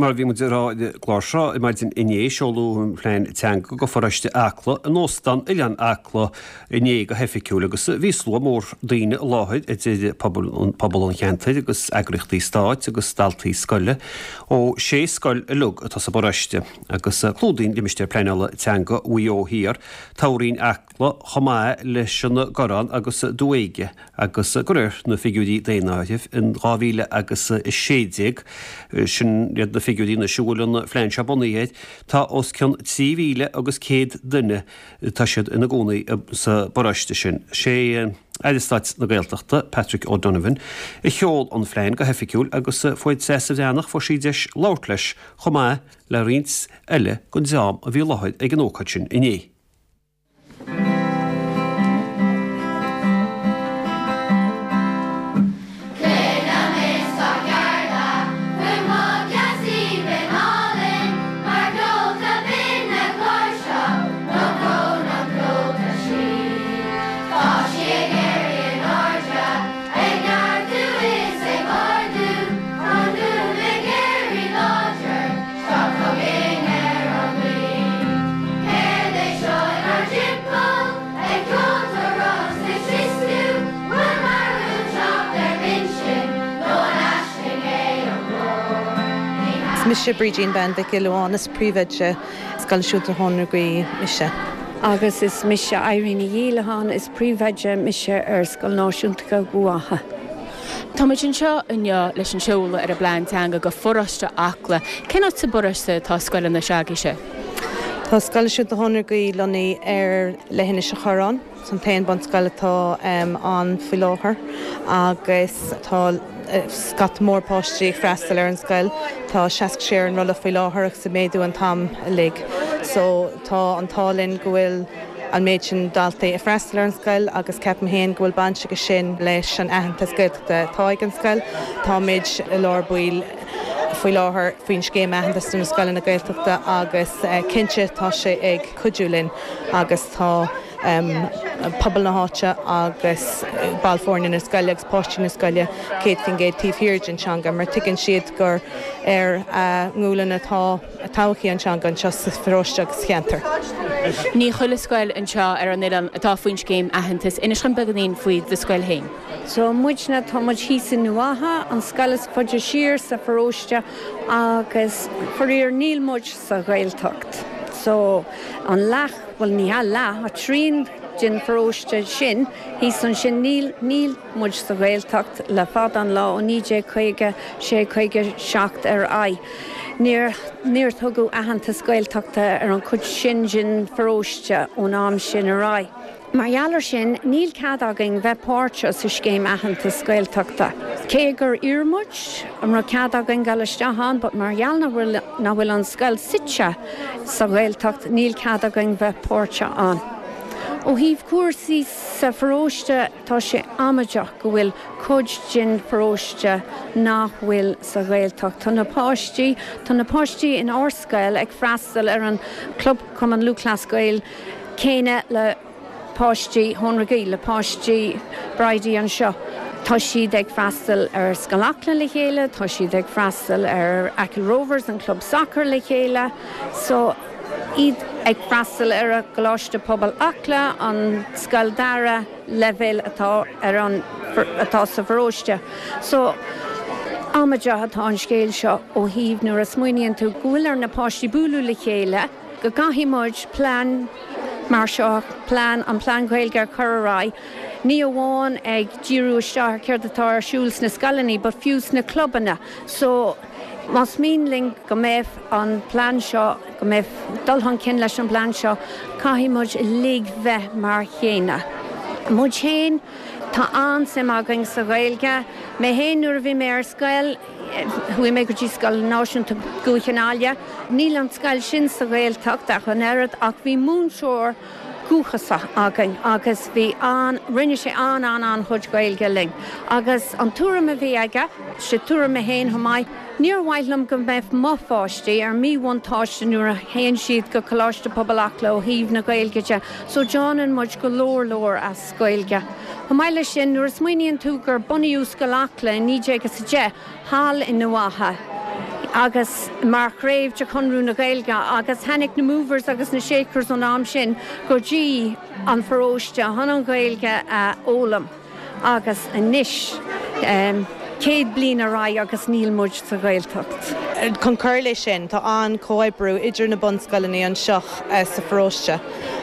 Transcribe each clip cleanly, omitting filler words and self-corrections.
mar a bhí muid ag rá ar an gclár seo ar maidin inné, seoladh an phlean teanga go pharóiste Acla in Óstán Oileán Acla inné go hoifigiúil agus bhí slua mór daoine i láthair idir pobal an cheantair agus eagraíochtaí stáit agus daltaí scoile ó sé scoil uilig atá sa bparóiste agus clúdaíonn limistéar pleanála teanga Mhaigh Eo Thiar toghroinn Acla chomh maith leis an gCorrán agus Dumha Éige. Agus de réir na figiúirí daonáirimh in 2000 agus 16, sin iad na figiúirí anois a bhfuil an phlean seo bunaithe air, tá os cionn 3,000 agus 100 duine, tá siad ina gcónaí sa bparóiste sin. Sé Aire Stáit na Gaeltachta, Patrick O'Donovan, a sheol an phlean go hoifigiúil agus fuair Treasa Bhreathnach, fuair sí deis labhairt leis chomh maith le roinnt eile den dream a bhí i láthair ag an ócáid sin inné. Tá chugainn ar an ngaoth. Céard é seo inár dtimpeall? Ag ceoltóireacht 's ag sioscú? Bhfuil marú ag teacht ar m'intinn nó an aisling é an glór? Ní Is mise Brídín Bean Mhic Giolla Bháin, is príomhoide Scoil Náisiúnta Thóin na Gaoithe mise. Agus is mise Irene Ní Dhíolacháin, is príomhoide mise ar Scoil Náisiúnta Dhubha Átha. Tá muid anseo inniu leis an seoladh ar an bplean teanga go pharóiste Acla. Cén áit sa bparóiste atá scoileanna s'agaibhse? Tá Scoil Náisiúnta Thóin na Gaoithe lonnaithe ar leithinis an Chorráin. Is an t-aon bunscoil atá ann faoi láthair agus tá scata mór páistí ag freastal ar an scoil. Tá 66 ar an rolla faoi láthair agus ag méadú an t-am uilig. So tá an t-ádh linn go bhfuil an méid sin daltaí ag freastal ar an scoil agus ceapaim féin go bhfuil baint aige sin leis an aitheantas Gaeltachta atá ag an scoil. Táimid i lár baill faoi láthair faoin scéim aitheantas do na scoileanna Gaeltachta agus cinnte tá sé ag cuidiú linn agus tá pobal na háite agus baill foirne na scoile agus páistí na scoile 100% taobh thiar den teanga mar tuigeann siad gur ar a ngualainn atá todhchaí an teanga anseo sa pharóiste agus sa cheantar. Ní chuile scoil anseo ar an oileán atá faoin scéim aitheantais. Inis dom beagáinín faoi do scoil féin. So muidne, tá muid thíos i nDumha Átha, an scoil is faide siar sa pharóiste agus faraor níl muid sa Ghaeltacht. So an leath, bhuel ní hea leath, ach trian den pharóiste sin thíos ansin níl, níl muid sa Ghaeltacht le fada an lá ó 1956, 57 ar aghaidh. Níor, níor tugadh aitheantas Gaeltachta ar an chuid sin den pharóiste ón am sin ar aghaidh. Mar gheall ar sin, níl cead againn bheith páirteach sa scéim aitheantas Gaeltachta. Cé gur iarr muid an raibh cead againn dul isteach ann, but mar gheall nach bhfuil, nach bhfuil an scoil suite sa Ghaeltacht, níl cead againn bheith páirteach ann. Ó thaobh cúrsaí sa pharóiste, Tá sé amaideach go bhfuil cuid den pharóiste nach bhfuil sa Ghaeltacht. Tá na páistí, tá na páistí in ár scoil ag freastal ar an Club Cumann Lúthchleas Gael céanna le páistí Thóin na Gaoithe, le páistí Bridie anseo. Tá siad ag freastal ar Scoil Acla le chéile, tá siad ag freastal ar Achill Rovers, an club sacair le chéile. So, iad ag freastal ar an gColáiste Pobail Acla, an scoil dara leibhéal atá ar an atá sa pharóiste. So, amaideach atá an scéal seo ó thaobh nuair a smaoiníonn tú go bhfuil ar na páistí bualadh le chéile, go gcaithfidh muid plean mar seo, plean, an plean Gaeilge a chur ar aghaidh, ní amháin ag díriú isteach ar céard atá ar siúl sna scoileanna but fiú sna clubanna. So, Más mian linn go mbeidh an plean seo, go mbeidh dul chun cinn leis an bplean seo, caithfidh muid uilig bheith mar chéanna. Muid féin, tá an-suim againn sa Ghaeilge. Mé féin, nuair a bhí mé ar scoil, chuaigh mé go dtí Scoil Náisiúnta Dhúiche na Aille. Níl an scoil sin sa Ghaeltacht ach an oiread ach bhí múinteoir dúchasach againn agus bhí an, rinne sé an-an-an-chuid Gaeilge linn agus an tuairim a bhí aige, sé tuairim mé féin chomh maith, níor mhaith liom go mbeadh mo pháistí ar míbhuntáiste nuair a théann siad go Coláiste Pobail Acla ó thaobh na Gaeilge de so déanann muid go leor leor as Gaeilge. Chomh maith leis sin, nuair a smaoiníonn tú gur bunaíodh Scoil Acla i 1910 thall i nDumha Átha. Agus mar chraobh de Chonradh na Gaeilge agus tháinig na Movers agus na Shakers ón am sin go dtí an pharóiste chun an Ghaeilge a fhoghlaim agus anois 100 bliain ar aghaidh agus níl muid sa Ghaeltacht. Chun cur leis sin, tá an-chomhoibriú idir na bunscoileanna anseo sa pharóiste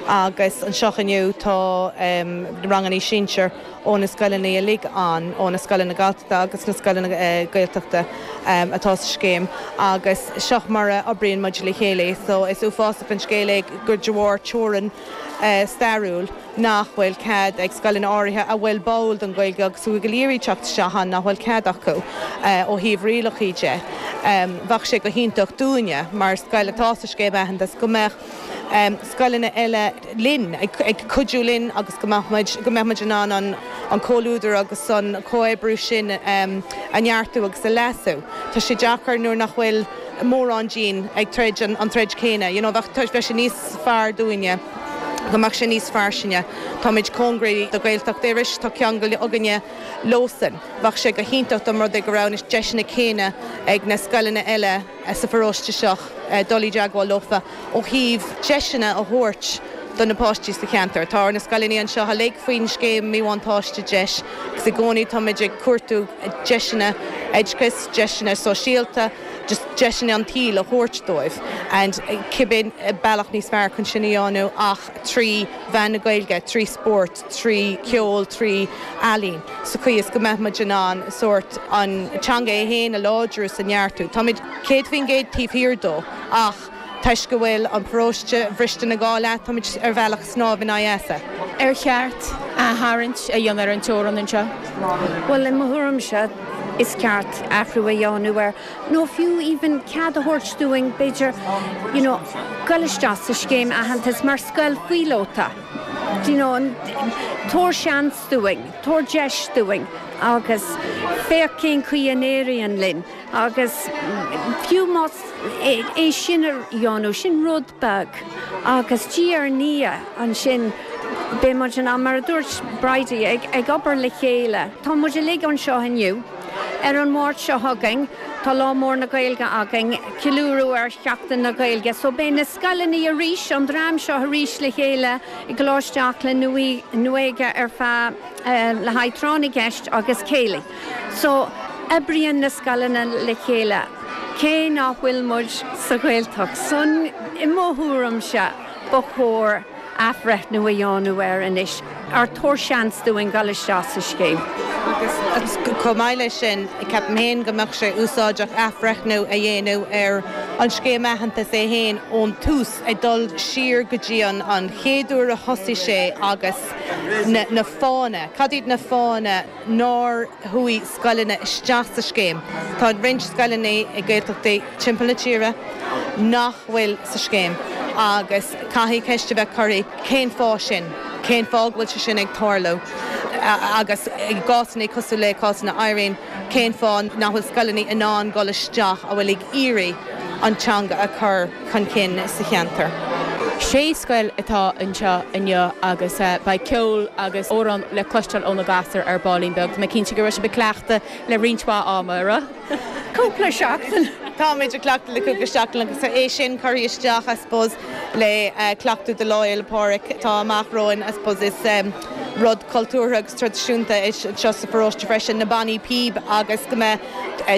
agus anseo inniu tá ranganna sinsir ó na scoileanna uilig ann, ó na scoileanna Galltachta agus na scoileanna Gaeltachta atá sa scéim agus seo mar a oibríonn muid le chéile. So is uafásach an scéal é gur de bharr teorainn stairiúil nach bhfuil cead ag scoileanna áirithe a bhfuil báúil don Ghaeilge agus a bhfuil ag iarraidh teacht isteach ann nach bhfuil cead acu ó thaobh rialacha de. Bheadh sé go hiontach dúinne mar scoil atá sa scéim aitheantais go mbeadh scoileanna eile linn, ag cuidiú linn agus go mbeadh muid, go mbeadh muid in ann an an comhluadar agus an comhoibriú sin a neartú agus a leasú. Tá sé deacair nuair nach bhfuil mórán dínn ag troid an troid céanna, you know, bheadh, bheadh sé níos fearr dúinne go mbeadh sé níos fairsinge. Táimid cóngaraí do Ghaeltacht Iorrais, tá ceangal againne leosan. Bheadh sé go hiontach dá mba rud é go raibh na deiseanna céanna ag na scoileanna eile sa pharóiste seo dul i dteagmháil leofa ó thaobh deiseanna a thabhairt do na páistí sa cheantar. Tá na scoileanna anseo uilig faoin scéim míbhuntáiste deis agus i gcónaí táimid ag cuartú deiseanna oideachais, deiseanna sóisialta, just deiseanna an tsaoil a thabhairt dóibh and cibé bealach níos fearr chun sin a dhéanamh ach trí mheán na Gaeilge, trí spórt, trí cheol, trí ealaín, sa chaoi is go mbeadh muid in ann sórt an teanga é féin a láidriú is a neartú. Táimid 100% taobh thiar dó ach toisc go bhfuil an paróiste bhriste ina dhá leath, táimid ar bhealach ag snámh in aghaidh easa. Ar cheart aththarraingt a dhéanamh ar an teorainn anseo? Bhuel, i mo thuairimse, is ceart athrú a dhéanamh air, nó fiú even cead a thabhairt dúinn, b'fhéidir, you know, goil isteach sa scéim aitheantais mar scoil phíolóta. Do you know, tabhair seans dúinn, tabhair deis dúinn agus féach cén chaoi a n-éiríonn linn agus fiú más é sin a dhéanamh, sin rud beag agus diaidh ar ndiaidh ansin beidh muid in ann, mar a dúirt Bridie, ag obair le chéile. Tá muid uilig anseo inniu. Ar an Mháirt seo chugainn tá Lá Mór na Gaeilge againn, ceiliúradh ar Sheachtain na Gaeilge. So beidh na scoileanna arís, an dream seo arís le chéile i gColáiste Acla Nuadha ar feadh, le haghaidh tráth na gceist agus céilí. So oibríonn na scoileanna le chéile cé nach bhfuil muid sa Ghaeltacht. So i mo thuairimse ba chóir athbhreithniú a dhéanamh air anois, or tabhair seans dúinn dul isteach sa scéim. Agus chomh maith leis sin, ceapaim féin go mbeadh sé úsáideach athbhreithniú a dhéanamh ar an scéim aitheantais é féin ón tús, ag dul siar go dtí an chéad uair a thosaigh sé agus na fáthanna, cad iad na fáthanna nár chuaigh scoileanna isteach sa scéim? Tá roinnt scoileanna i Gaeltachtaí timpeall na tíre nach bhfuil sa scéim agus caithfidh ceist a bheith curtha cén fáth sin, cén fáth go bhfuil sé sin ag tarlú agus i gcásanna cosúil le cásanna Irene, cén fáth nach bhfuil scoileanna in ann dul isteach a bhfuil ag iarraidh an teanga a chur chun cinn sa cheantar. Sé scoil atá anseo inniu agus beidh ceol agus amhráin le cloisteáil ó na gasúir ar baillín beag. Tá mé cinnte go raibh sibh ag cleachtadh le roinnt mhaith ama, an raibh? Cúpla seachtain. Táimid ag cleachtadh le cúpla seachtain agus é sin curtha isteach, I suppose, le cleachtadh do Lá Fhéile Pádraig atá amach romhainn, I suppose. Is rud cultúrtha agus traidisiúnta é seo sa pharóiste freisin, na bannaí píob agus go mbeidh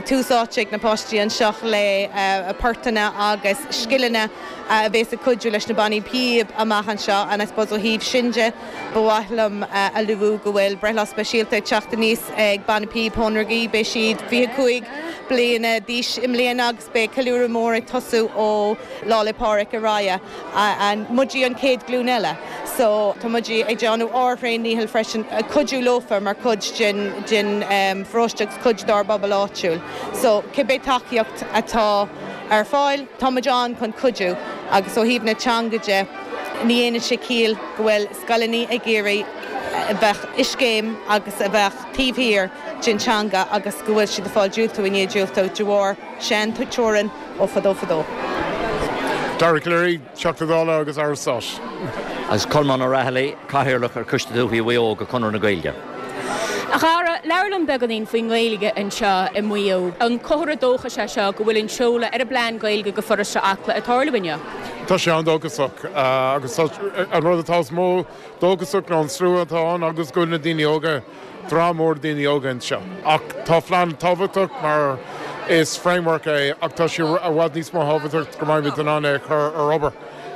tús áite ag na páistí anseo le portanna agus scileanna a bhéas ag cuidiú leis na bannaí píob amach anseo and I suppose ó thaobh sin de ba mhaith liom a luú go bhfuil breithlá speisialta ag teacht aníos ag Banna Píob Thóin Beidh siad 25 bliana d'aois i mbliana agus beidh ceiliúradh mór ag tosú ó Lá 'le Pádraig ar aghaidh. And muide an chéad ghlúin eile so tá muid ag déanamh ár thréan-ndícheall freisin cuidiú leofa mar chuid den den pharóiste agus cuid dár bpobal áitiúil. So cibé tacaíocht atá ar fáil, tá muid ann chun cuidiú agus ó thaobh na teanga de, ní dhéanann sé ciall go bhfuil scoileanna ag iarraidh a bheith i scéim agus a bheith taobh thiar den teanga agus go bhfuil siad ag fáil diúltú i ndiaidh diúltú de bharr sean-teorainn ó fadó fadó. Dara Calleary, Teachta Dála agus Aire Stáit. Agus Colmán Ó Raghallaigh, Cathaoirleach ar Choiste Dúiche Mhaigh Eo de Chonradh na Gaeilge. A Dhara, labhair liom beagáinín faoin nGaeilge anseo i Maigh Eo. An comhartha dóchais é seo go bhfuil an seoladh ar an bplean Gaeilge do pharóiste Acla ag tarlú inniu? Tá sé an-dóchasach agus tá an rud atá is mó dóchasach ná an slua atá ann agus go bhfuil na daoine óga, dream mór daoine óga anseo. Ach tá phlean tábhachtach mar is framework é ach tá sé i bhfad níos mó thábhachtach go mbeimid in ann é a chur ar obair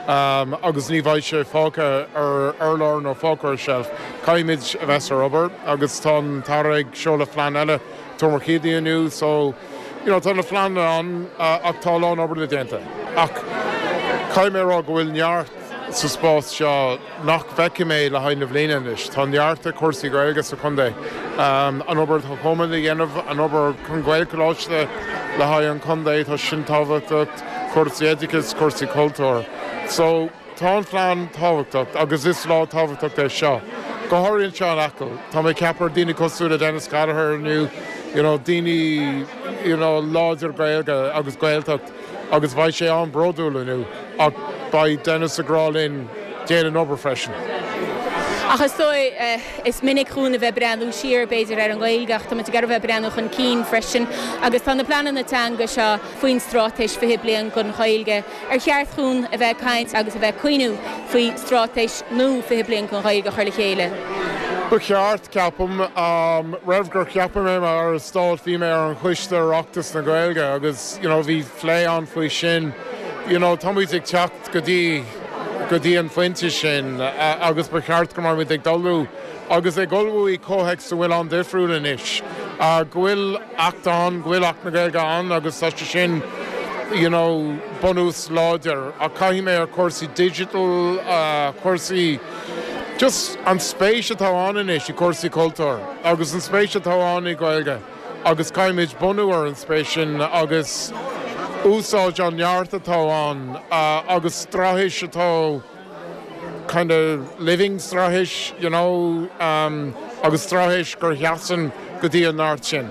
agus ní bheidh sé fágtha ar urlár nó fágtha ar shelf. Caithfimid a bheith ar obair agus tá an tAire ag seoladh phlean eile Tuar Mhic Éadaigh inniu so you know tá na phleananna ann ach tá a lán obair le déanta. Ach caithfidh mé a rá go bhfuil neart sa spás seo nach bhfeicfidh mé le haghaidh na bhliana anois. Tá neart ag cúrsaí Gaeilge sa chontae. An obair atá Coleman a dhéanamh, an obair chun Gaelcholáiste le haghaidh an chontae, tá sin tábhachtach, cúrsaí oideachais, cúrsaí cultúir. So, tá an phlean tábhachtach agus is lá tábhachtach é seo. Go háirithe anseo in Acaill. Tá mé ag ceapadh ar daoine cosúil le Denis Gallagher inniu, you know, daoine, you know, láidir Gaeilge agus Gaeltacht. agus beidh sé an-bhródúil inniu ach beidh Denis ag rá linn déan an obair freisin. Ach is dóigh, is minic dhúinn a bheith ag breathnú siar, b'fhéidir, ar an nGaeilge ach tá muid ag iarraidh a bheith ag breathnú chun cinn freisin agus tá na pleananna teanga seo faoin Straitéis 20 Bliain don Ghaeilge. Ar cheart dhúinn a bheith ag caint agus a bheith ag cuimhniú faoi Straitéis nua 20 Bliain don Ghaeilge a chur le chéile? Ba cheart, ceapaim. Roimh gur ceapadh mé mar Aire Stáit bhí mé ar an choiste Oireachtas na Gaeilge agus, you know bhí plé ann faoi sin you know táimid ag teacht go dtí go dtí an phointe sin agus ba cheart go mbeimid ag ullmhú agus ag ullmhú i comhthéacs a bhfuil an-difriúil anois go bhfuil Acht ann go bhfuil Acht na Gaeilge ann agus tá sé sin you know bunús láidir ach caithfidh mé ar chúrsaí digital cúrsaí just an spéis atá ann anois i cúrsaí cultúir agus an spéis atá ann i Gaeilge. agus caithfimid bunú ar an spéis sin agus úsáid an neart atá ann agus straitéis atá kind of living straitéis you know agus straitéis gur sheasann go dtí an neart sin.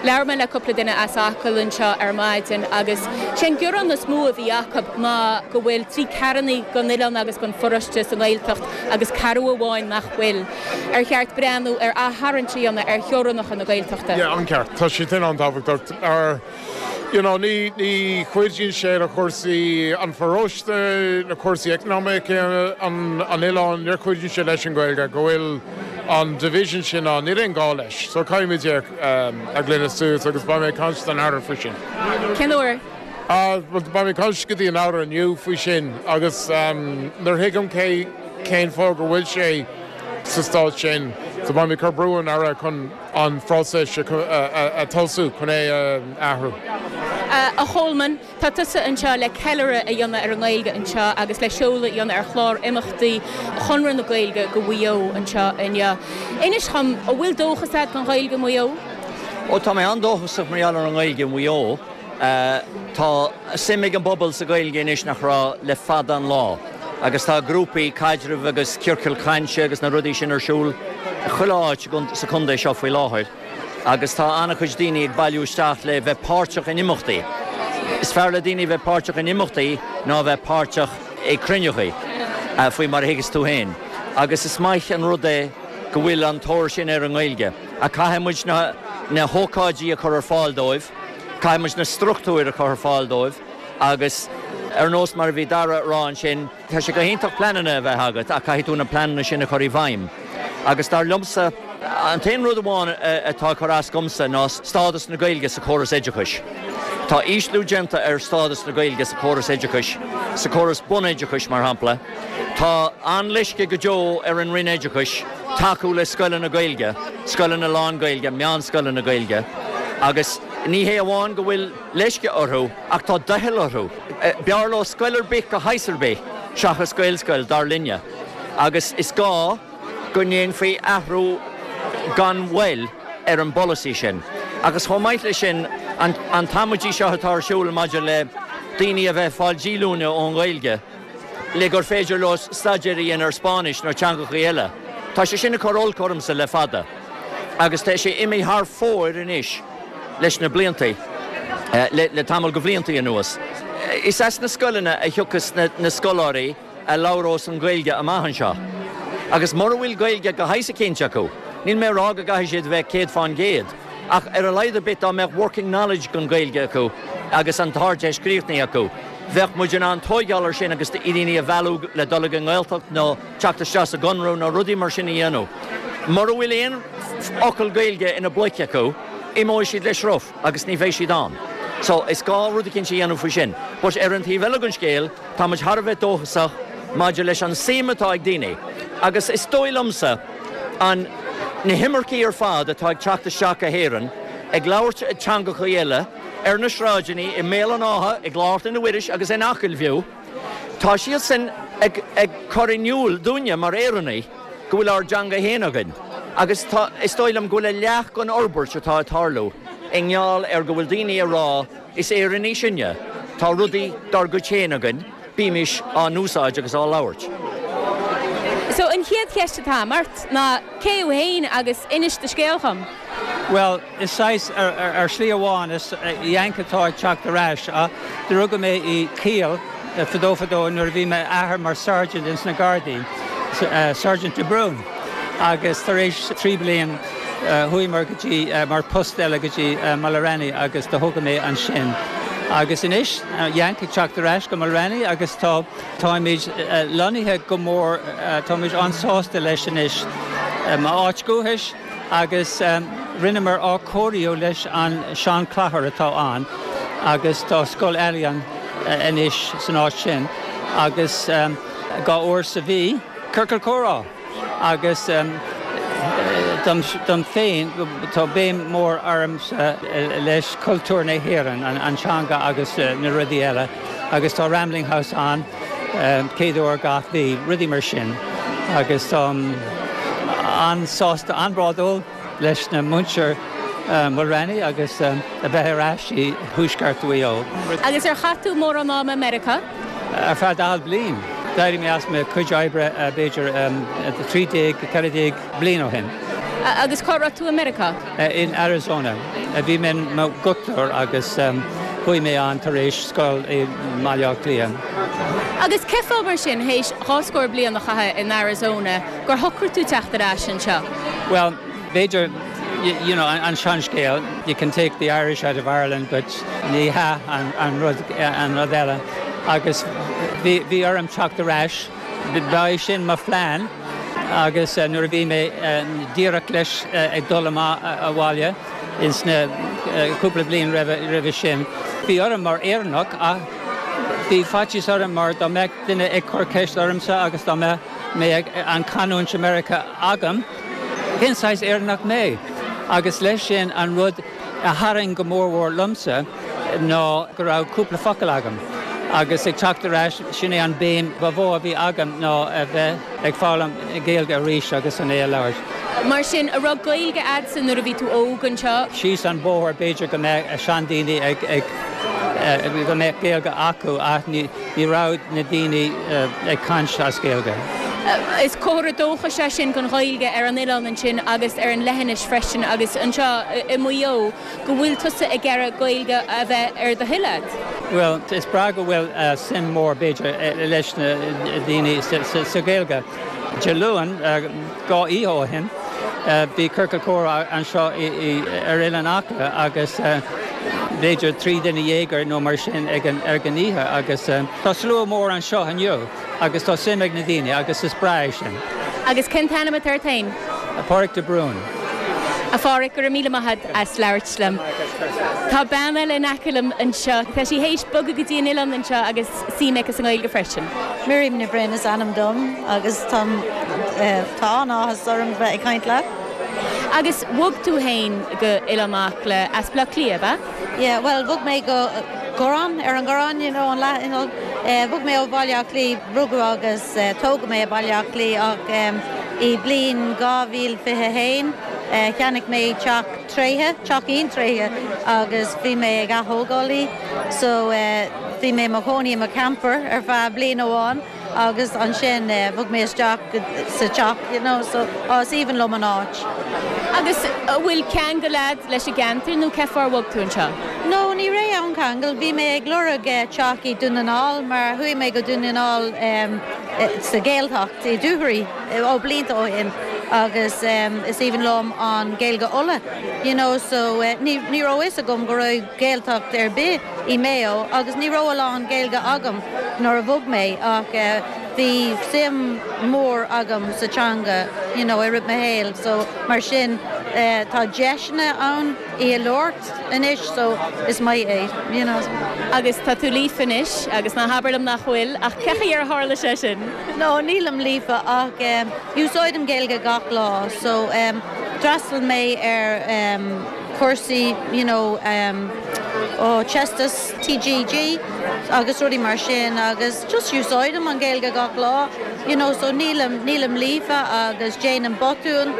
Labhair mé le cúpla duine as Acaill anseo ar maidin agus sé an gearán is mó a bhí acu ná go bhfuil trí ceathrúna den oileán agus den pharóiste sa nGaeltacht agus ceathrú amháin nach bhfuil. Ar cheart breathnú ar aththarraingt a dhéanamh ar theorainneacha na Gaeltachta? Yeah, an-cheart. Tá sé sin an-tábhachtach. Ar, you know, ní, ní chuidíonn sé le cúrsaí an pharóiste, na cúrsaí eacnamaíocha an, an oileáin, níor chuidíonn sé leis an Ghaeilge go bhfuil an division sin ann. Níl aon gá leis. So caithfimid é a ghlanadh suas agus beidh mé ag caint don Aire faoi sin. Cén uair? Ah, bhuel, beidh mé ag caint go dtí an Aire inniu faoi sin agus nuair thuigim cé, cén fáth go bhfuil sé sa staid sin, so beidh mé ag cur brú ar an Aire chun an phróiseas a tosú chun é a athrú. A Cholmáin, tá tusa anseo le ceiliúradh a dhéanamh ar an nGaeilge anseo agus le seoladh a dhéanamh ar chlár imeachtaí Chonradh na Gaeilge do Mhaigh Eo anseo inniu. Inis dhom, an bhfuil dóchas agat don Ghaeilge i Maigh Eo? Ó, tá mé an-dóchasach mar gheall ar an nGaeilge i Maigh Eo. Tá suim ag an bpobal sa Ghaeilge anois nach raibh le fada an lá agus tá grúpaí caidrimh agus ciorcail chainte agus na rudaí sin ar siúl chuile áit sa chontae seo faoi láthair agus tá an-chuid daoine ag bailiú isteach le bheith páirteach in imeachtaí. Is fearr le daoine bheith páirteach in imeachtaí ná bheith páirteach i cruinneachaí, faoi mar a thuigeas tú féin. Agus is maith an rud é go bhfuil an tóir sin ar an nGaeilge ach caithfidh muid na hócáidí a chur ar fáil dóibh. Caithfidh muid na struchtúir a chur ar fáil dóibh agus ar nós mar a bhí Dara a rá ansin, tá sé go hiontach pleananna a bheith agat ach caithfidh tú na pleananna sin a chur i bhfeidhm. Agus dar liomsa, an t-aon rud amháin atá ag cur as dhomsa ná stádas na Gaeilge sa chóras oideachais. Tá ísliú déanta ar stádas na Gaeilge sa chóras oideachais, sa chóras bunoideachais mar shampla. Tá an-leisce go deo ar an Roinn Oideachais tacú le scoileanna Gaeilge, scoileanna lán-Ghaeilge, meánscoileanna Gaeilge agus ní hé amháin go bhfuil leisce orthu ach tá doicheall orthu. B'fhearr leo scoil ar bith de shaghas ar bith seachas Gaelscoil, dar linne, agus is gá go ndéanfaí athrú gan mhoill ar an bpolasaí sin. Agus chomh maith leis sin, an t-amaidí seo atá ar siúl maidir le daoine a bheith ag fáil díolúine ón nGaeilge, le gur féidir leo staidéar a dhéanamh ar Spáinnis nó teangachaí eile. Tá sé sin ag cur olc ormsa le fada agus tá sé imithe thar fóir anois leis na bliantaí, le tamall de bhliantaí anuas. Is as na scoileanna a thiocfas na scoláirí a labhrós an Ghaeilge amach anseo agus mura bhfuil Gaeilge de shaghas eicínt acu. Níl mé ag rá go gcaithfidh siad a bheith 100%, ach ar a laghad ar bith dá mbeadh working knowledge den Ghaeilge acu agus an tArdteist críochnaithe acu, bheadh muid in ann tóigeáil ar sin agus daoine a mhealladh le dul ag an nGaeltacht nó teacht isteach sa gConradh nó rudaí mar sin a dhéanamh. Mura bhfuil aon fhocal Gaeilge ina bpluic acu, imeoidh siad le sruth agus ní bheidh siad ann. So, is gá rud eicínt a dhéanamh faoi sin. But ar an taobh eile den scéal, tá muid thar a bheith dóchasach maidir leis an suim atá ag daoine agus is dóigh liomsa an na himircigh ar fad atá ag teacht isteach go hÉirinn ag labhairt teangachaí eile ar na sráideanna i mBéal an Átha, i gClár Chlainne Mhuiris agus in Acaill fiú, tá siadsan ag ag cur in iúl dúinne mar Éireannaigh go bhfuil ár dteanga féin againn agus tá, is dóigh liom go bhfuil a leath den fhorbairt atá ag tarlú i ngeall ar go bhfuil daoine ag rá is Éireannaigh sinne, tá rudaí dár gcuid féin againn, bímis á n-úsáid agus á labhairt. So an chéad cheist atá agam ort ná cé thú féin agus inis do scéal dhom. Bhuel, is saghas, ar shlí amháin, is Yank atá ag teacht ar ais. Do rugadh mé i Kiel fadó fadó nuair a bhí m'athair mar sergeant ins na Gardaí, Sergeant de Brún, agus tar éis 3 bliain chuaíomar go dtí, mar post eile go dtí Mulranny agus do tógadh mé ansin. Agus anois, Yank ag teacht ar ais go Mulranny agus tá, táimid lonnaithe go mór, táimid an-sásta leis anois. M'áit dhúchais agus rinneamar athchóiriú leis an sean-chathair atá ann agus tá scoil ealaíon anois san áit sin agus dhá uair sa mhí, ciorcal comhrá agus dom féin tá béim mór ormsa leis cultúr na hÉireann, an teanga agus na rudaí eile agus tá Rambling House ann céad uair gach mhí, rudaí mar sin agus táim an-sásta, an-bhródúil leis na muintir Mulranny agus a bheith ar ais i thuaisceart Mhaigh Eo. Agus ar chaith tú mórán ama i Meiriceá? Ar feadh 40 bliain. D'éirigh mé as mo chuid oibre b'fhéidir 13, 14 bliain ó shin. Agus cá raibh tú i Meiriceá? In Arizona. Bhí mé i mo dhochtúir agus chuaigh mé ann tar éis scoil i mBaile Átha Cliath. Agus cén fáth mar sin, théis dhá scór bliain a chaitheamh in Arizona, gur shocraigh tú teacht ar ais anseo? Bhuel, b'fhéidir, you know, an seanscéal, you can take the Irish out of Ireland but ní hea an rud, an rud eile. Agus bhí, bhí orm teacht ar ais, ba é sin mo phlean agus nuair a bhí mé díreach leis ag dul amach abhaile ins na cúpla bliain roimhe, roimhe sin, bhí orm mar Éireannach ach bhí faitíos orm mar dá mbeadh duine ag cur ceist ormsa agus dá mbeadh mé ag an canúint i Meiriceá agam, Cén saghas Éireannach mé? Agus leis sin an rud a tharraing go mórmhór liomsa ná go raibh cúpla focal agam. Agus ag teacht ar ais, sin é an béim ba mhó a bhí agam ná a bheith ag foghlaim Gaeilge arís agus an é a labhairt. Mar sin, an raibh Gaeilge a'dsa nuair a bhí tú óg anseo? Síos an bóthar b'fhéidir go mbeadh seandaoine ag, go mbeadh Gaeilge acu ach ní, Ní raibh na daoine ag caint as Gaeilge. Is comhartha dóchais é sin don Ghaeilge ar an oileán ansin agus ar an leithinis freisin agus anseo i Maigh Eo go bhfuil tusa ag iarraidh Gaeilge a bheith ar do thoil a'd. Bhuel, is breá go bhfuil suim mór, b'fhéidir, leis na daoine sa Ghaeilge. Dé Luain, dhá oíche ó shin, bhí ciorcal comhrá anseo ar Oileán Acla agus b'fhéidir 13 duine nó mar sin ag an oíche agus tá slua mór anseo inniu agus tá suim ag na daoine agus is breá é sin. Agus cén t-ainm atá ort féin? Páraic de Brún. A Pháraic, go raibh míle maith agat as labhairt liom. Tá bean eile in aice liom anseo. Tá sí théis bogadh go dtí an oileán anseo agus suim aici sa nGaeilge freisin. Miriam Ní Bhroin is ainm dom agus táim, tá an-áthas orm bheith ag caint leat. Agus bhog tú féin go Oileán Acla as Baile Átha Cliath, ab ea? Yeah, bhuel, bhog mé go Gurán, ar an Ghurán, you know, an leath, you know, bhog mé ó Bhaile Átha Cliath, rugadh agus tógadh mé i Baile Átha Cliath ach i bliain 2021 cheannaigh mé teach tréigthe, teachín tréigthe agus bhí mé ag ath-thógáil í so bhí mé i mo chónaí i mo camper ar feadh bliain amháin agus ansin bhog mé isteach sa teach you know so oh is aoibhinn liom an áit. Agus an bhfuil ceangal a'd leis an gceantar nó cén fáth ar bhog tú anseo? No, ní raibh aon cheangal, bhí mé ag lorg teach i Dún na nGall mar chuaigh mé go Dún na nGall sa Ghaeltacht i Dúchoraidh ó blianta ó shin. agus is aoibhinn liom an Gaeilge Uladh you know so ní ní raibh fhios agam go raibh Gaeltacht ar bith i Maigh Eo agus ní raibh a lán Gaeilge agam nuair a bhog mé ach bhí suim mór agam sa teanga you know i rith mo shaoil so mar sin tá deiseanna ann í a labhairt anois so is maith é you know. Agus tá tú líofa anois agus ná habair liom nach bhfuil ach cé chaoi ar tharla sé sin? No nílim líofa ach úsáidim Gaeilge gach lá so d'fhreastail mé ar cúrsaí you know ó Teastas TGG agus rudaí mar sin agus just úsáidim an Ghaeilge gach lá you know so nílim nílim líofa agus déanaim botúin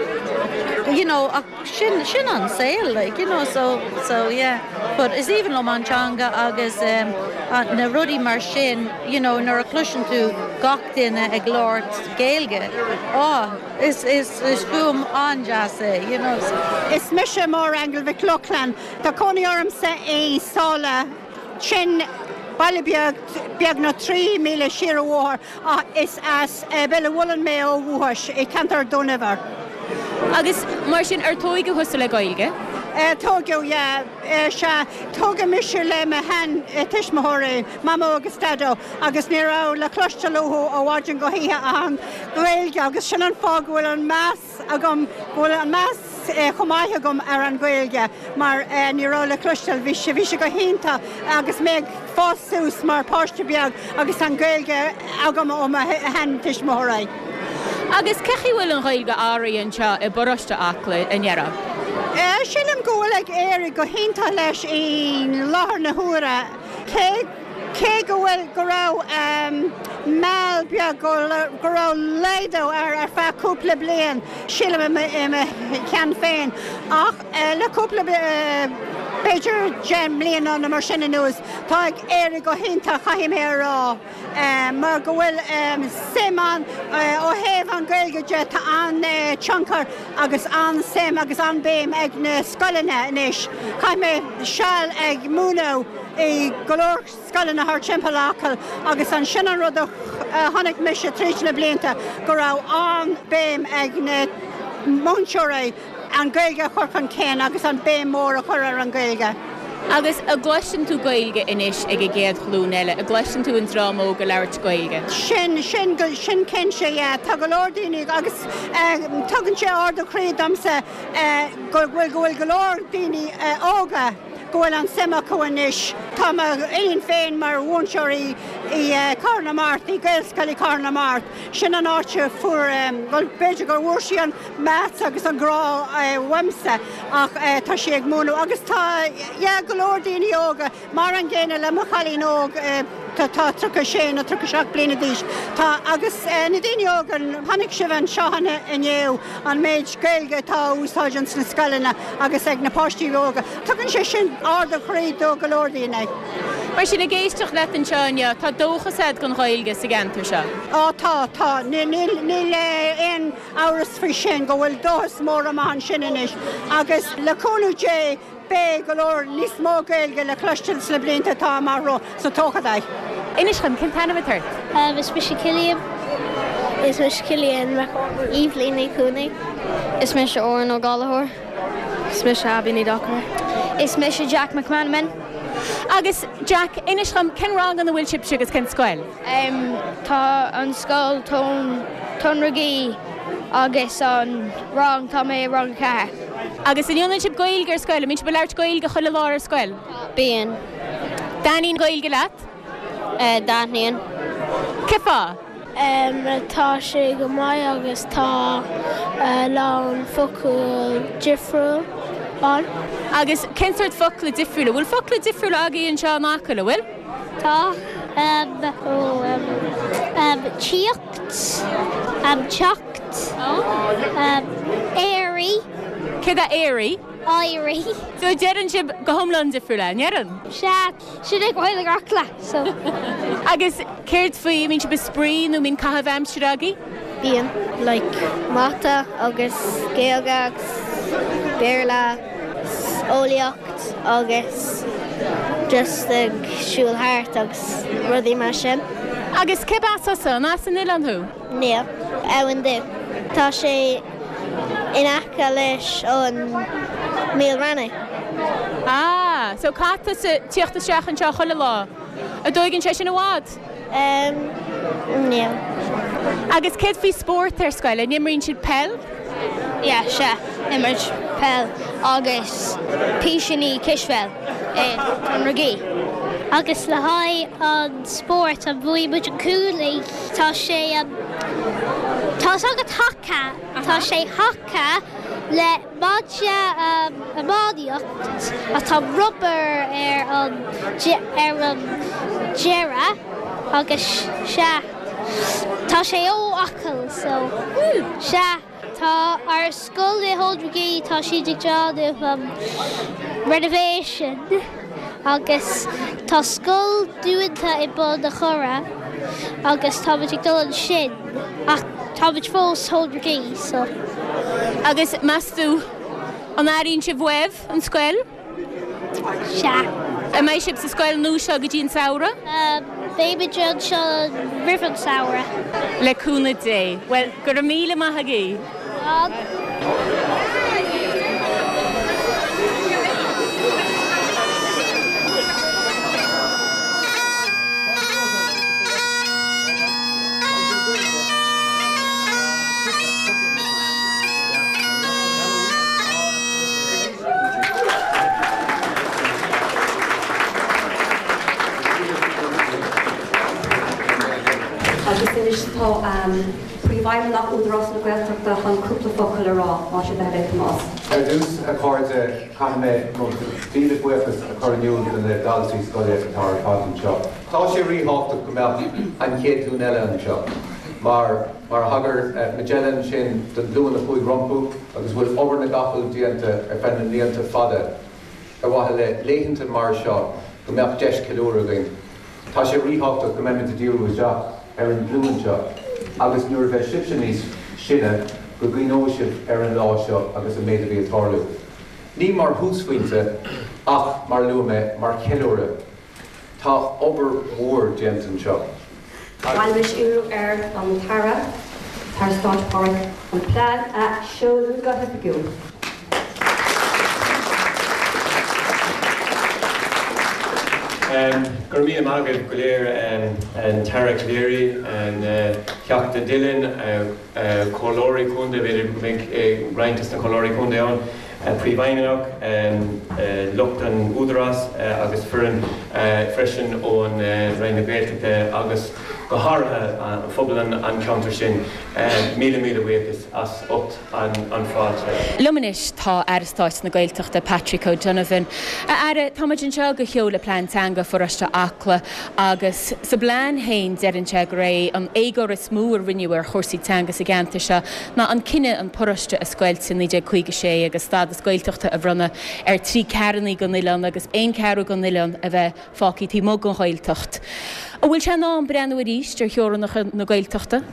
you know ach sin sin an saol like you know so so yeah but is aoibhinn liom an teanga agus um, na rudaí mar sin you know nuair a chloiseann tú gach duine ag labhairt Gaeilge oh is is is fuaim an-deas é you know so. Is mise Máire Aingeal Mhic Lochlainn. Tá cónaí ormsa i Sáile, sin baile beag beagnach 3 míle siar an bhóthar ach is as Béal an Mhuilinn mé ó dhúchas, i ceantar Dún Eibhir. Agus mar sin, ar tóigeadh thusa le Gaeilge? Tóigeadh, yeah. Sea, tógadh mise le mo shean tuismitheoirí, Mamó agus Daideo, agus ní raibh le cloisteáil uathu ó mhaidin go hoíche ach an Ghaeilge agus sin an fáth go bhfuil an meas agam go bhfuil an meas chomh maith agam ar an Ghaeilge mar ní raibh le cloisteáil, bhí sé, bhí sé go hiontach agus mé ag fás suas mar páiste beag agus an Ghaeilge agam ó mo sheantuismitheoirí. Agus cé chaoi bhfuil an Ghaeilge athraithe anseo i bparóiste Acla, an ndéarfá? Sílim go bhfuil ag éirí go hiontach leis i láthair na huaire. Cé. Cé go bhfuil, go raibh meall beag, go raibh laghdú air ar feadh cúpla bliain, sílim i mo cheann féin, ach le cúpla, b'fhéidir 10 mbliana nó mar sin anuas, tá ag éirí go hiontach, caithfidh mé a rá, mar go bhfuil suim ann ó thaobh an Ghaeilge de, tá an-tionchar agus an-suim agus an-béim ag na scoileanna anois. Chaith mé seal ag múineadh i go leor scoileanna thar timpeall Acaill agus ansin an rud a chonaic mise tríd na blianta go raibh an-béim ag na múinteoirí an Ghaeilge a chur chun cinn agus an béim mór a chur ar an Ghaeilge. Agus an gcloiseann tú Gaeilge anois ag an gcéad ghlúin eile? An gcloiseann tú an dream óg ag labhairt Gaeilge? Sin, sin, sin cinnte, yeah. Tá go leor daoine agus tugann sé ardú croí domsa go bhfuil, go bhfuil go leor daoine óga go bhfuil an suim acu anois. Tá mo iníon féin mar mhúinteoir i gCathair na Mart, i Gaelscoil i Cathair na Mart. Sin an áit a fuair, bhuel b'fhéidir gur bhfuair sí an meas agus an grá uaimse ach tá sí ag múineadh agus tá, yeah, go leor daoine óga mar an gcéanna le mo chailín óg atá 36 nó 37 bliana d'aois. Tá agus na daoine óga, chonaic sibh anseo inniu an méid Gaeilge atá á úsáid ins na scoileanna agus ag na páistí óga. Tugann sé sin ardú croí do go leor daoine. Mar sin, ag éisteacht leat anseo inniu, tá dóchas agat don Ghaeilge sa gceantar seo? Á tá, tá. Níl aon amhras faoi sin go bhfuil dóchas mór amach ansin anois agus le cúnamh Dé beidh go leor níos mó Gaeilge le cloisteáil sna blianta atá amach romhainn sa todhchaí. Inis dom, cén t-ainm atá ort? Is mise Cillian. Is mise Cillian Mac Eibhlín Ní Chuanaigh. Is mise Oran Ó Gallchóir. Is mise Abby Ní Dochartaigh. Is mise Jack McManaman. Agus Jack, inis dom, cén rang ina bhfuil sibhse agus cén scoil? Tá an scoil Tóin Ragaí agus an rang, tá mé i rang 4. Agus an ndéanann sibh Gaeilge ar scoil? An mbíonn sibh ag labhairt Gaeilge chuile lá ar scoil? Bíonn. Dtaitníonn Gaeilge leat? Dtaitníonn. Cén fáth? Tá sé go maith agus tá a lán focal difriúil ann. Agus cén sórt focla difriúla? Bhfuil focla difriúla agaibh anseo in Acaill, an bhfuil? Tá. Tíocht, teacht, éirí. Céard é éirí? Éirí. So deireann sibh go hiomlán difriúil é, an ndeireann? Sea, sin é Gaeilge Acla, so. Agus céard faoi, an mbíonn sibh ag spraoi nó an mbíonn caitheamh aimsire agaibh? Bíonn. Like mata agus Gaeilge agus Béarla, eolaíocht agus just ag siúl thart agus rudaí mar sin. Agus cérb as thusa? An as an oileán thú? Níl. Abhainn Dubh. Tá sé. In aice leis an Míol Raithní. Ah, so caithfidh tusa tíocht isteach anseo chuile lá. An dtóigeann sé sin i bhfad? Em, níl. Agus céard faoi spórt ar scoil, an imríonn sibh peil? Yeah, sea, imirt peil agus písíní cispheil i Tonragee. Agus le haghaidh an spórt, an bhuaigh muid an Cooley, tá sé, tá a fhios agat haca, tá sé haca le maide iománaíocht ach tá rubber ar an ar an deireadh agus sea tá sé ó Acaill so sea tá ár scoil i Thonragee tá siad ag déanamh renovation agus tá scoil dúnta i Bun a' Choire agus táimid ag dul ansin ach táimid fós Thonragee so. Agus meas tú, an airíonn sibh uaibh an scoil? Sea. An mbeidh sibh sa scoil nua seo go dtí an samhradh? Beimid anseo roimh an samhradh. Le cúnamh Dé. Bhuel, go raibh míle maith agaibh. Agus anois tá Príomhfheidhmeannach Údarás na Gaeltachta chun cúpla focal a rá, más é do thoil é Tomás. Ar dtús, a chairde, caithfidh mé mo mhíle buíochas a chur in iúl do na daltaí scoile atá ar fad anseo. Tá sé ríthábhachtach go mbeadh an chéad ghlúin eile anseo mar, mar a thagair Majella ansin don ghlúin a chuaigh rompu agus a bhfuil obair na gcapall déanta ar feadh na mblianta fada ar mhaithe le laethanta mar seo go mbeadh deis ceiliúradh againn. Tá sé ríthábhachtach go mbeimid ag díriú isteach ar an nglúin seo agus nuair a bheidh sibhse níos sine go gcuimhneoidh sibh ar an lá seo agus an méid a bhí ag tarlú. Ní mar thúsphointe ach, mar a luaigh mé, mar cheiliúradh. Tá obair mhór déanta anseo. Anois iarraim ar an tAire, Aire Stáit Pádraig, an plean a sheoladh go hoifigiúil. Go raibh míle maith agaibh go léir, an tAire Calleary, an Teachta Dillon, Comhairleoirí Contae, b'fhéidir go mbeidh roinnt de na Comhairleoirí Contae ann, Príomhfheidhmeannach, lucht an Údarás agus foireann freisin ón Roinn na Gaeltachta agus go háirithe phobal an cheantair sin. Míle míle buíochas as ucht an fáilte. Liom anois tá Aire Stáit na Gaeltachta, Patrick O'Donovan. A Aire, tá muid anseo do sheoladh Plean Teanga Pharóiste Acla agus sa bplean féin deireann sé gur é an éagóir is mó a rinneadh ar chúrsaí teanga sa gceantar seo ná an cinneadh an paróiste a scoilt i 1956 agus stádas Gaeltachta a bhronnadh ar thrí ceathrúna den oileán agus aon cheathrú den oileán a bheith fágtha taobh amuigh den Ghaeltacht. An bhfuil sé in am breathnú arís ar theorainneacha na Gaeltachta?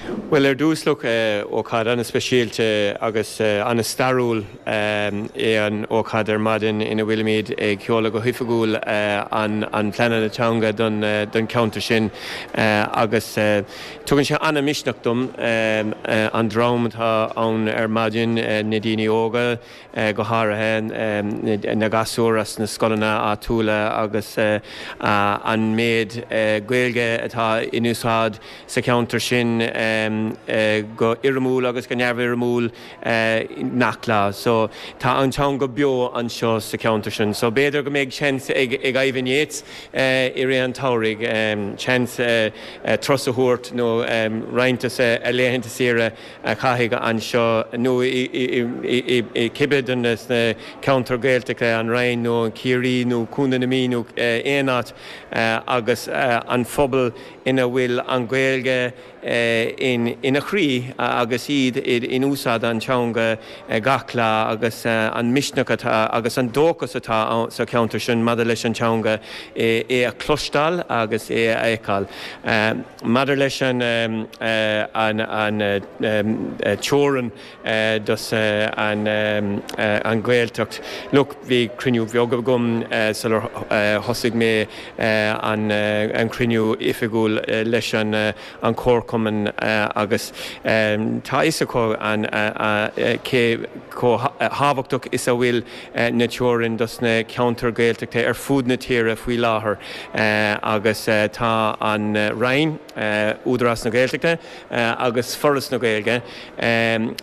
Bhuel, ar dtús, look, ócáid an-speisialta agus an-stairiúil é an ócáid ar maidin ina bhfuilimid ag seoladh go hoifigiúil an pleananna teanga don cheantar sin agus tugann sé an-misneach dom an dream atá ann ar maidin, na daoine óga, go háirithe na gasúir as na scoileanna áitiúla agus an méid Gaeilge atá in úsáid sa cheantar sin go foirmiúil agus go neamhfhoirmiúil gach lá. So tá an teanga beo anseo sa cheantar sin. So b'fhéidir go mbeidh seans ag Ivan Yates i rith an tsamhraidh seans turas a thabhairt nó roinnt de a laethanta saoire a chaitheamh anseo nó i cibé de na ceantair Ghaeltachta, an Rinn nó Ciarraí nó Contae na Mí nó aon áit agus an phobal ina bhfuil an Ghaeilge ina chroí agus iad in úsáid an teanga gach lá agus an misneach atá agus an dóchas atá sa cheantar sin maidir leis an teanga é a chloisteáil agus é a fheiceáil. Maidir leis an teorainn dos an Ghaeltacht, look, bhí cruinniú beag agam sular thosaigh mé an cruinniú oifigiúil leis an chomharchumann. Agus tá fhios acu cé chomh thábhachtach is a bhfuil na teorainn dos na ceantair Gaeltachta ar fud na tíre faoi láthair agus tá an Roinn, Údarás na Gaeltachta agus Foras na Gaeilge,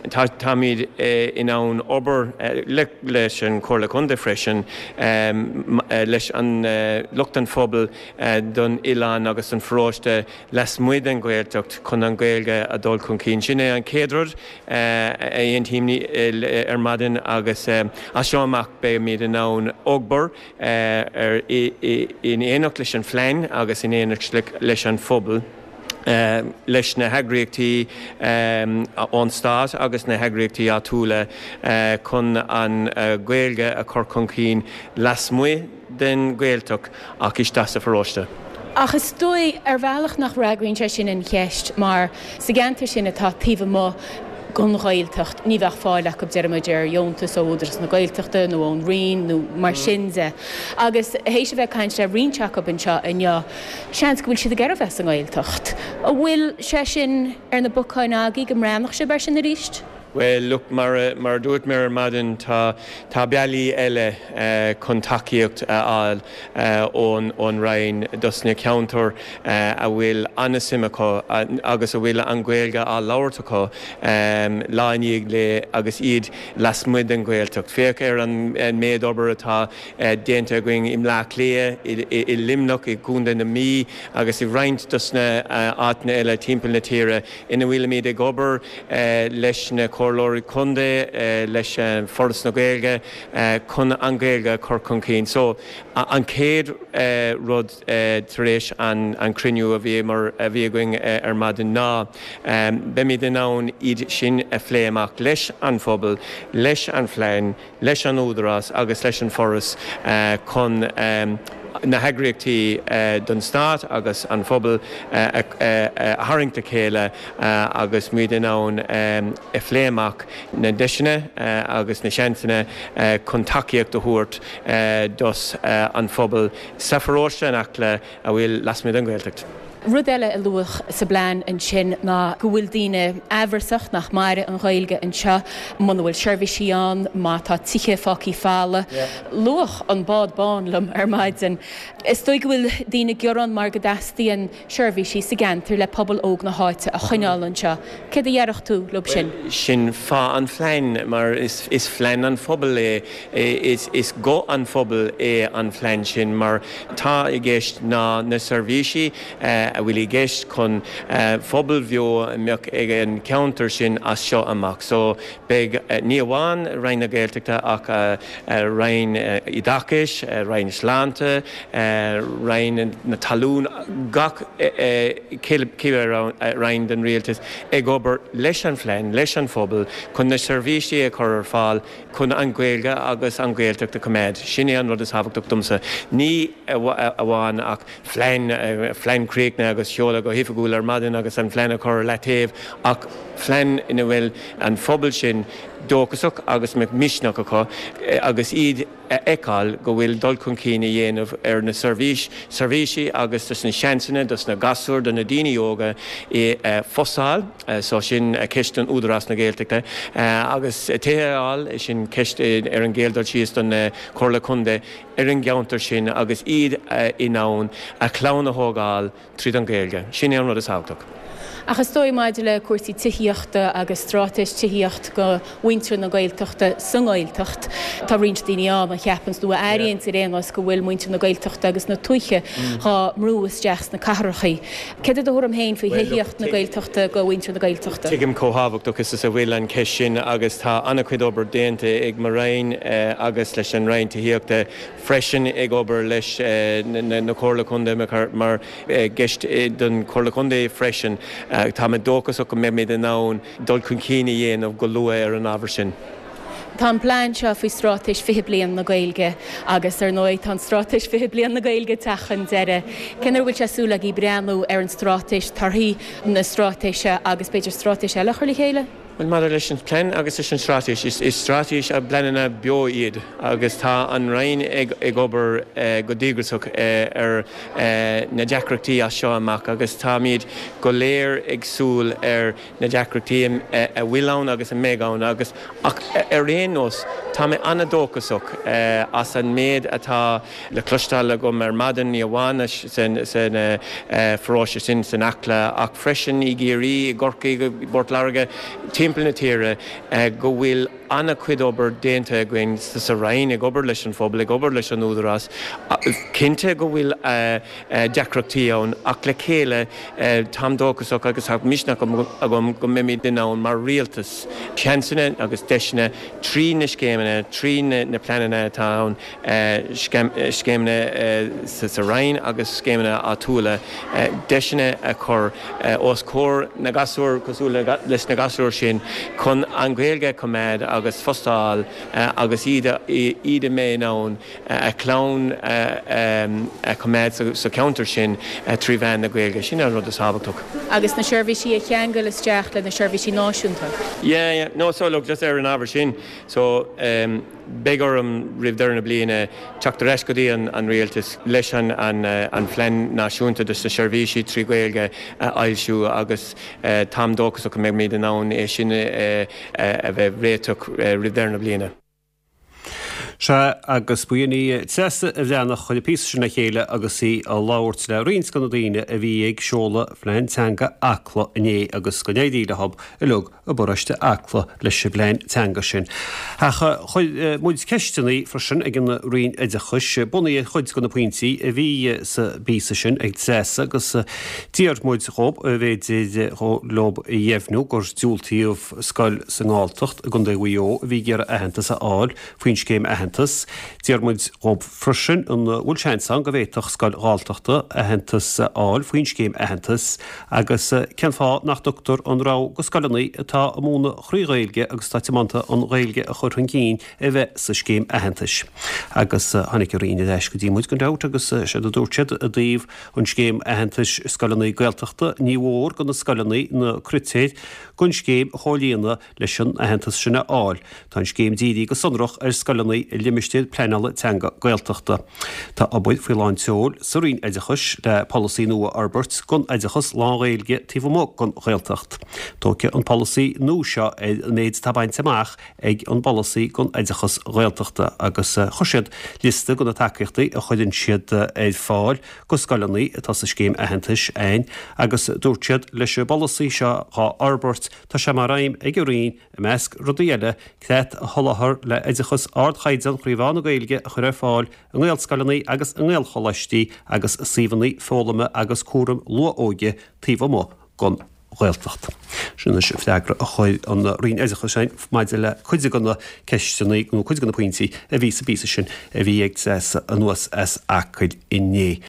táimid in ann obair leis an Chomhairle Contae freisin, leis an lucht an phobail don oileán agus don pharóiste lasmuigh den Ghaeltacht chun an Ghaeilge a dul chun cinn. Sin é an chéad rud a aontaím ar maidin agus as seo amach beimid in ann obair in éineacht leis an phlean agus in éineacht leis an phobal, leis na heagraíochtaí ón stát agus na heagraíochtaí áitiúla chun an Ghaeilge a chur chun cinn lasmuigh den Ghaeltacht ach isteach sa pharóiste. Ach is dóigh, ar bhealach, nach bhfreagraíonn sé sin an cheist mar sa gceantar sin atá taobh amuigh den Ghaeltacht, ní bheadh fáil acu, deir muid, ar dheontas ó Údarás na Gaeltachta nó ón Roinn nó mar sin de. Agus théis a bheith ag caint le roinnt acu anseo inniu, seans go bhfuil siad ag iarraidh bheith sa nGaeltacht. An bhfuil sé sin ar na bacáin agaibh, go mbreathnódh sibh air sin arís? Bhuel, look, mar a, mar a dúirt mé ar maidin, tá, tá bealaí eile chun tacaíocht a fháil ón, ón Roinn dos na ceantair a bhfuil an-suim acu agus a bhfuil an Ghaeilge á labhairt acu lá i ndiaidh lae agus iad lasmuigh den Ghaeltacht. Féach ar an méid obair atá déanta againn i mBleá Cliath, i, i Luimneach, i gContae na Mí agus i roinnt dos na áiteanna eile timpeall na tíre ina bhfuilimid ag obair leis na Comhairleoirí Contae, leis Foras na Gaeilge chun an Ghaeilge a chur chun cinn. So, an chéad rud tar éis an cruinniú a bhí a bhí againn ar maidin ná beimid in ann iad sin a phlé amach leis an phobal, leis an phlean, leis an Údarás agus leis an Foras chun na heagraíochtaí don Stát agus an phobal a tharraingt le chéile agus muid in ann a phlé amach na deiseanna agus na seansanna chun tacaíocht a thabhairt dos an phobal sa pharóiste in Acla a bhfuil lasmuigh den Ghaeltacht. Rud eile a luadh sa bplean ansin ná go bhfuil daoine amhrasach nach mairfidh an Ghaeilge anseo muna bhfuil seirbhísí ann, má tá tithe fágtha folamh. Luadh an bád bán liom ar maidin. Is dóigh go bhfuil daoine ag gearán mar go dteastaíonn seirbhísí sa gceantar le pobal óg na háite a choinneáil anseo. Céard a dhéarfadh tú leo sin? Sin fáth an phlean, mar is plean an phobail é. Is guth an phobail é an plean sin mar tá i gceist ná na seirbhísí a bhfuil i gceist chun phobal bheo a mbeadh ag an cheantar sin as seo amach. So beidh ní amháin Roinn na Gaeltachta ach Roinn Oideachais, Roinn Sláinte, Roinn na Talún, gach cibé roinn den rialtas ag obair leis an phlean, leis an phobal chun na seirbhísí a chur ar fáil chun an Ghaeilge agus an Ghaeltacht a choimeád. Sin é an rud is tábhachtach domsa. Ní amháin ach phlean, phlean críochnaithe agus seoladh go hoifigiúil ar maidin agus an phlean a chur ar leataobh ach phlean ina bhfuil an phobal sin dóchasach agus mbeadh misneach acu agus iad a fheiceáil go bhfuil dul chun cinn a dhéanamh ar na seirbhís, seirbhísí agus dos na seansanna dos na gasúir, do na daoine óga i phostáil. So sin ceist don Údarás na Gaeltachta. Agus tithe a fháil, sin ceist ar an gcéad dul síos don Chomhairle Contae ar an gceantar sin agus iad in ann a chlann a thógáil tríd an Ghaeilge. Sin é an rud is tábhachtach. Ach is dóigh maidir le cúrsaí tithíochta agus straitéis tithíocht go mhuintir na Gaeltachta sa nGaeltacht, tá roinnt daoine ann a cheapanns nó a airíonns ar aon nós go bhfuil muintir na Gaeltachta agus na tuaithe dhá mbrú isteach sna cathrachaí. Céard é do thuairim féin faoi thithíocht na Gaeltachta go mhuintir na Gaeltachta? Tuigim chomh thábhachtach is a bhfuil an cheist sin agus tá an-chuid obair déanta ag mo Roinn agus leis an Roinn Tithíochta freisin ag obair leis na Comhairle Contae mar gceist don Chomhairle Contae freisin. Tá mé dóchasach go mbeimid in ann dul chun cinn a dhéanamh go luath ar an ábhar sin. Tá an plean seo faoi Straitéis 20 Bliain na Gaeilge agus, ar ndóigh, tá an Straitéis 20 Bliain na Gaeilge ag teacht chun deiridh. Cén uair a bhfuil sé súil agaibh breathnú ar an straitéis, torthaí na straitéise agus b'fhéidir straitéis eile a chur le chéile? Bhuel, maidir leis an bplean agus leis an straitéis, is straitéis agus pleananna beo iad agus tá an Roinn ag obair go díograiseach ar na deacrachtaí as seo amach agus táimid go léir ag súil ar na deacrachtaí a bhfuil ann agus a mbeidh ann agus ach ar aon nós tá mé an-dóchasach as an méid atá le cloisteáil agam ar maidin, ní amháin san pharóiste sin san Acla ach freisin i gCiarraí, i gCorcaigh, i bPort Láirge, timpeall na tíre, go bhfuil an-chuid obair déanta againn sa Roinn, ag obair leis an phobal, ag obair leis an Údarás. Cinnte go bhfuil deacrachtaí ann ach le chéile táim dóchasach agus tá misneach agam go mbeimid in ann mar Rialtas seansanna agus deiseanna trí na scéimeanna, trí na pleananna atá ann, scéimeanna sa Roinn agus scéimeanna áitiúla, deiseanna a chur os comhair na gasúr cosúil leis na gasúir sin chun an Ghaeilge a choimeád agus post a fháil agus iad iad a mbeidh in ann a chlann a choimeád sa cheantar sin trí mheán na Gaeilge. Sin an rud is tábhachtach. Agus na seirbhísí a cheangal isteach le na seirbhísí náisiúnta. Yeah, yeah. No, so look, just ar an ábhar sin, so, Beidh orm, roimh deireadh na bliana, teacht ar ais go dtí an Rialtas leis an Phlean Náisiúnta dos na Seirbhísí trí Ghaeilge a fhoilsiú agus táim dóchasach go mbeimid in ann é sin a bheith réiteach roimh deireadh na bliana. Sea, agus ba í Treasa Bhreathnach a chuir an píosa sin le chéile agus í ag labhairt le roinnt de na daoine a bhí ag seoladh Phlean Teanga Acla inné agus go n-éirí leo uilig i bparóiste Acla leis an bplean teanga sin. Ach chuir muid ceisteanna freisin ag an Roinn Oideachais, bunaithe ar chuid de na pointí a bhí sa bpíosa sin ag Treasa agus d'iarr muid dhób an bhféidir leob a dheimhniú gur diúltaíodh scoil sa nGalltacht i gContae Mhaigh Eo a bhí ag iarraidh aitheantas a fháil faoin scéim aitheantas. D'iarr muid dhób freisin an bhfuil seans ann go bhféadfadh scoil Ghalltachta aitheantas a fháil faoin scéim aitheantas Agus cén fáth nach dtugtar an rogha go scoileanna atá ag múineadh thrí Ghaeilge agus atá tiomanta an Ghaeilge a chur chun cinn a bheith sa scéim aitheantais? Agus tháinig an Roinn ar ais go dtí muid gan dabht agus séard a dúirt siad i dtaobh an scéim aitheantais scoileanna Gaeltachta, ní mhór go na scoileanna na critéir don scéim a chomhlíonadh leis an aitheantas sin a fháil. Tá an scéim dírithe go sonrach ar scoileanna i limistéir pleanála teanga Gaeltachta. Tá obair faoi lán tseoil sa Roinn Oideachais le polasaí nua a fhorbairt don oideachas lán-Ghaeilge taobh amuigh den Ghaeltacht. Tógfaidh an polasaí nua seo ar an méid atá bainte amach ag an bpolasaí don oideachas Ghaeltachta agus chuir siad liosta de na tacaíochtaí a chuireann siad ar fáil go scoileanna atá sa scéim aitheantais ann agus dúirt siad leis an bpolasaí seo dhá fhorbairt Tá sé mar aidhm ag an Roinn, i measc rudaí eile, creat a sholáthar le oideachas ardchaighdeán thrí mheán na Gaeilge a chur ar fáil i nGaelscoileanna agus i nGaelcholáistí agus i suíomhanna foghlama agus cúraim luath-óige taobh amuigh den Ghaeltacht. Sin anois an freagra a chuir an Roinn Oideachais againn maidir le cuid de na ceisteanna nó cuid de na pointí a bhí sa bpíosa sin a bhí ag Treasa anuas as Acaill inné.